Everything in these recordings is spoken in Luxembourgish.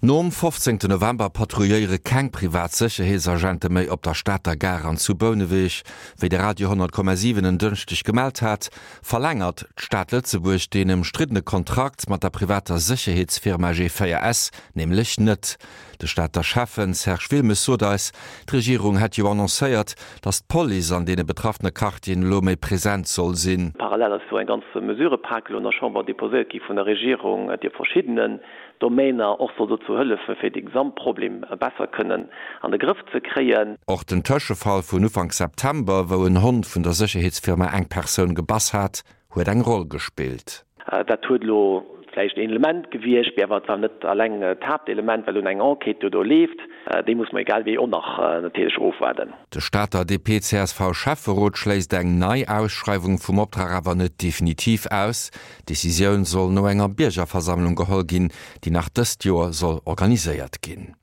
Nom 15 November patrouilléiere keng privat Sécherheetsagente méi op der Stater Gare an zu Bouneweg. Wéi de Radio 10,7 en Dënschdeg gemellt hat, verlängert d'Stad Lëtzebuerg deen ëmstriddene Kontrakt mat der privater Sécherheetsfirma G4S nämlech net. De Stater Schäffen Serge Wilmes sot eis, d'Regierung hätt jo annoncéiert, datt d'Police an deene betraffene Quartieren elo méi present soll sinn. Parallel ass jo eng ganz Mesurëpak elo an der Chamber deposéiert gi vun der Regierung, déi op verschiddenen Domainer och soll dozou hëllefen, fir de Gesamtproblem besser kënnen an de Grëff ze kréien. Och den Tëschefall vun Ufank September, wou en Hond vun der Sécherheetsfirma eng Persoun gebass hat, huet eng Roll gespillt. Dat huet elo vläicht een Element gewiescht, mee awer et war net alleng d'Haaptelement, well un eng Enquête jo do leeft. Déi muss mer egal wéi och nach natierlech ofwaarden. De Stater DP-CSV-Schäfferot schléisst eng nei Ausschreiwung vum Optrag awer net definitiv aus. D'Decisioun soll no enger Biergerversammlung geholl ginn, déi nach dëst Joer soll organiséiert ginn.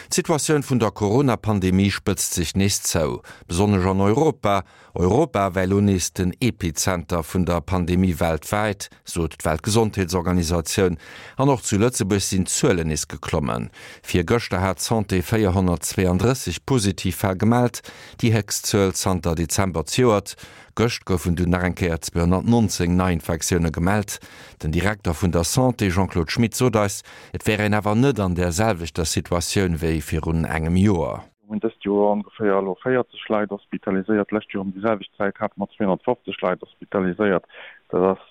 D'Situatioun vun der Corona-Pandemie spëtzt sech nees zou, besonnesch an Europa. Europa wär elo nees den Epizenter vun der Pandemie weltwäit, sot d'Weltgesondheetsorganisatioun. An och zu Lëtzebuerg sinn d'Zuelen nees geklommen. Virgëschter hat d'Santé 432 positiv Fäll gemellt, déi héchst Zuel zanter Dezember zejoert. Gëscht goufen dunn nach eng Kéier 219 Neiinfektioune gemellt. Den Direkter vun der Santé Jean-Claude Schmit sot eis, et wär een awer net an där selwechter Situatioun wéi virun engem Joer. Mir hunn dëst Joer ongeféier elo 40 Leit hospitaliséiert. D'lescht Joer ëm déi selwecht Zäit hate mer 250 Leit hospitaliséiert. Dat ass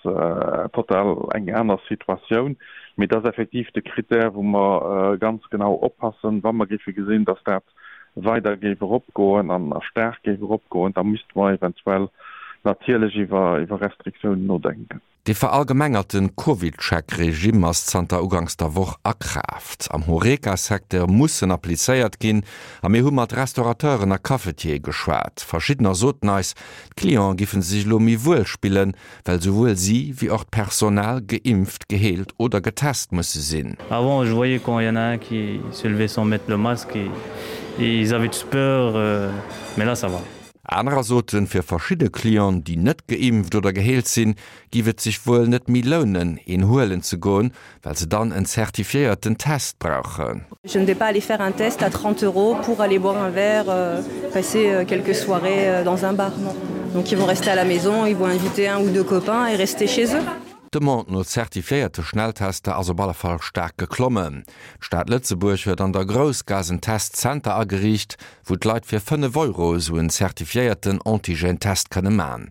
total eng aner Situatioun. Mee dat ass effektiv de Critère, wou mer ganz genau oppassen, wa mer géife gesinn, datt dat weider géif eropgoen an staark géif eropgoen, da misste mer eventuell natierlech iwwer Restriktiounen nodenken. Dee verallgemengerte CovidCheck-Regimm ass zanter uganks der Woch a Kraaft. Am Horeca-Secteur muss en applizéiert ginn a mir hu mat Restaurateuren a Cafetiere geschwat. Verschiddener soten eis, d'Clienten giffen sech elo méi wuel spillen, well souwuel si wéi och d'Personal geimpft, geheelt oder getest musse sinn. Avant je voyais quand il y en a un qui se levait sans mettre le masque et ils avaient tous peur mais là ça va. Anerer soten, fir verschidde Clienten, déi net geimpft oder geheelt sinn, giff et sech wuel net méi lounen, een huelen ze goen, well se dann en zertifiéierten Test brauchen. Je ne vais pas aller faire un test à 30 euros pour aller boire un verre, passer quelques soirées dans un bar, non. Donc ils vont rester à la maison, ils vont inviter un ou deux copains et rester chez eux. D'Demande no zertifiéierte Schnelltester ass op alle Fall staark geklommen. D'Stad Lëtzebuerg huet an der Groussgaass en Testzenter ageriicht, wou d'Leit fir 5 Euro esou en zertifiéierten Antigène-Test kënne man.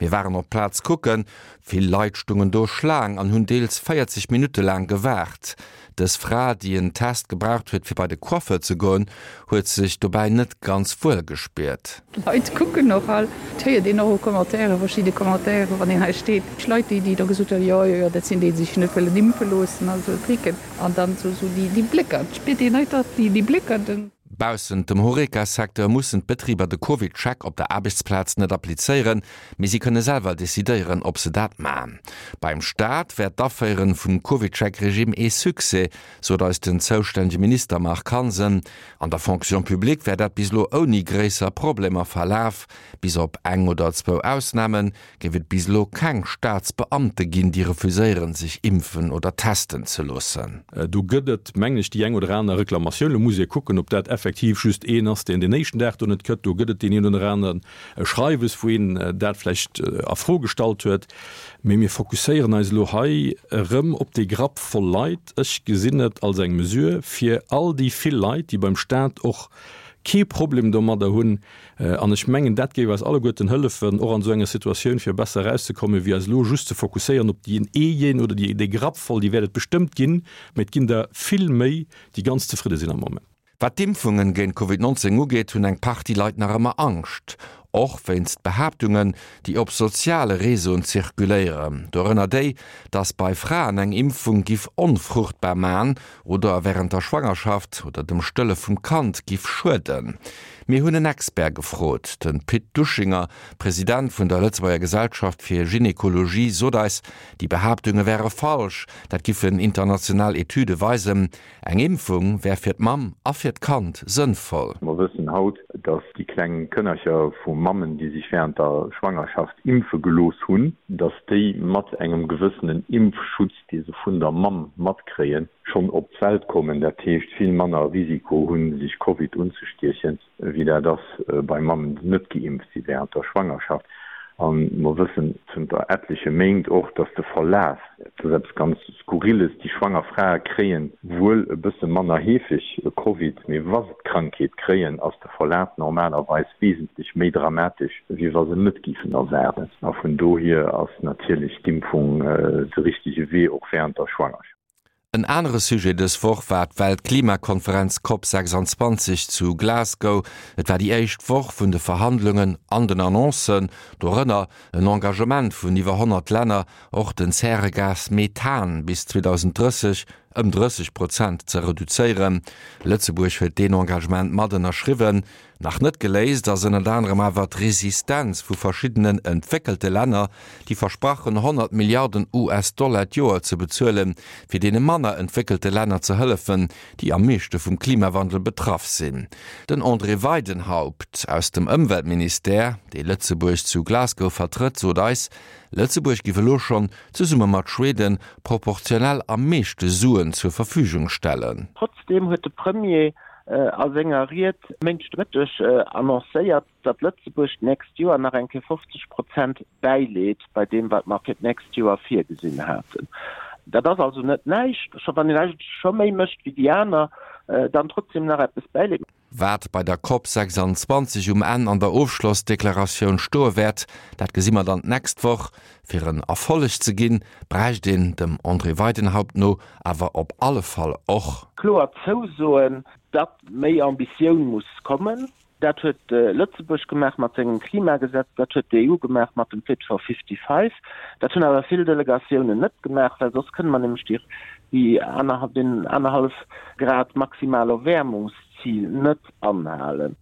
Mir waren op d'Plaz kucken, Vill Leit stungen do Schlaang an hunn deels 40 Minutte laang gewaart. Dës Fra, déi en Test gebraucht huet fir bei de Coiffeur ze goen, huet sech dobäi net ganz wuel gespiert. D'Leit kucken och all, et héiert een och u Commentairen, verschidde Commentairen, wann een hei steet, Leit, déi da gesot hunn, jo, jo, jo, dat sinn déi, déi sech net wëllen impfe loossen a sou Tricken. An dann esou déi Blécker, et spiert een einfach déi Blécker. Baussent dem Horeca-Secteur mussen d'Betriber de CovidCheck op der Aarbechtsplaz net applizéieren, mee si kënne selwer decidéieren, ob se dat man. Beim Staat wär d'Aféieren vum CovidCheck-Regime ee Succès, sot eis den zoustännege Minister Marc Hansen. An der Fonction publique wär dat bis elo ouni gréisser Problemer verlaf. Bis op eng oder zwou Ausnamen géif et bis elo keng Staatsbeamte ginn, déi refuséieren, sech impfen oder testen ze loossen. Do gëtt et, mengen ech, déi eng oder aner Reklamatioun. Elo muss ee kucken, ob dat effektiv just een ass, deen den éischten Dag do net kënnt. Do gëtt et deen een oder aneren Schreiwes, wou een dat vläicht a Fro gestallt huet. Mee mir fokusséieren eis elo hei erëm op dee Grapp voll Leit. Ech gesinn et als eng Mesure fir all déi vill Leit, déi beim Staat och kee Problem domadder hunn, An ech mengen, dat géif eis alleguerten hëllefen, och an esou enger Situatioun, fir besser erauszekommen, wéi eis elo just ze fokusséieren op deen een oder déi, dee Grapp voll. Déi wäert et bestëmmt ginn, mä et ginn der vill méi, déi ganz zefridde sinn am Moment. Wat d'Impfungen géint Covid 19 ugeet, hunn eng Partie Leit nach ëmmer Angscht. Och wéinst Behaaptungen, déi op soziale Reseauen zirkuléieren. Dorënner déi, dass bei Fraen eng Impfung giff onfruchtbar man oder wärend der Schwangerschaft oder dem Stëlle vum Kand giff schueden. Mir hunn en Expert gefrot. De Pit Duschinger, President vun der Lëtzebuerger Gesellschaft fir Gynekologie, sot eis, déi Behaaptunge wäre falsch, dat giffen international Etüde weisen. Eng Impfung wär fir d'Mamm a fir d'Kand sënnvoll. Mer wëssen haut, dass déi kleng Kënnercher vu. Mammen, déi sech während der Schwangerschaft impfe gelooss hunn, dass déi mat engem gewëssenen Impfschutz, dee se vun der Mamm matkréien, schonn op d'Welt kommen, dat heescht vill manner Risiko hunn, sech Covid unzestiechen. wéi dat ass bei Mammen, déi net geimpft si während der Schwangerschaft. A mer wëssen zënter etleche Méint och, dass de Verlaf, dat ass eppes ganz Skurrilles, déi schwanger Frae kréie wuel e bësse manner heefeg Covid, mee wa se d'Krankheet kréien, ass de Verlaf normalerweis wesentlech méi dramatesch, wéi wa se net géifen erwaarden. A vun dohier ass natierlech d'Impfung de richtege Wee, och während der Schwangerschaft. En anere Sujet dës Woch war d'Weltklimakonferenz Cop 26 zu Glasgow. Et war déi éischt Woch vun de Verhandlungen an den Annoncen, dorënner en Engagement vun iwwer 100 Länner, och den Zäregas Methan bis 2030 ëm 30 Prozent ze reduzéieren. Lëtzebuerg huet deen Engagement mat ënnerschriwwen. Nach net geléist ass ënnert anerem awer d'Resistenz vu verschiddenen entwéckelte Länner, déi versprachen 100 Milliarden US-Dollar d'Joer ze bezuelen, fir deene manner entwéckelte Länner ze hëllefen, déi am meeschte vum Klimawandel betraff sinn. Den André Weidenhaupt aus dem Ëmweltministère, dee Lëtzebuerg zu Glasgow vertrëtt, sot eis, Lëtzebuerg giff elo schonn, zesumme mat Schweden, proportionell am meeschte Suen zur Verfügung stellen. Trotzdeem huet de Premier a senger Ried Méindeg de Mëtteg annoncéiert, datt Lëtzebuerg d'nächst Joer nach eng Kéier 50 Prozent bäileet bei deem, wat mer fir d'nächst Joer virgesinn haten. Dat ass also net näischt, scho wann een eigentlech scho méi mécht wéi déi aner, dann trotzdem nach eppes bäileet. Wat bei der Cop 26 um Enn an der Ofschlossdeklaratioun stoe wäert, dat gesi mer dann d'nächst Woch. Fir en Erfolleg ze ginn, bräicht een, dem André Weidenhaupt no, awer op alle Fall och. Kloer Zousoen, datt méi Ambitioun muss kommen. Dat huet Lëtzebuerg gemaach mat sengem Klimagesetz, dat huet d'EU gemaach mat dem Fit for 55. Dat hunn awer vill Delegatiounen net gemaach, well soss kënne mer nämlech déi deen anerhallef Grad maximal Erwäermungszil net anhalen.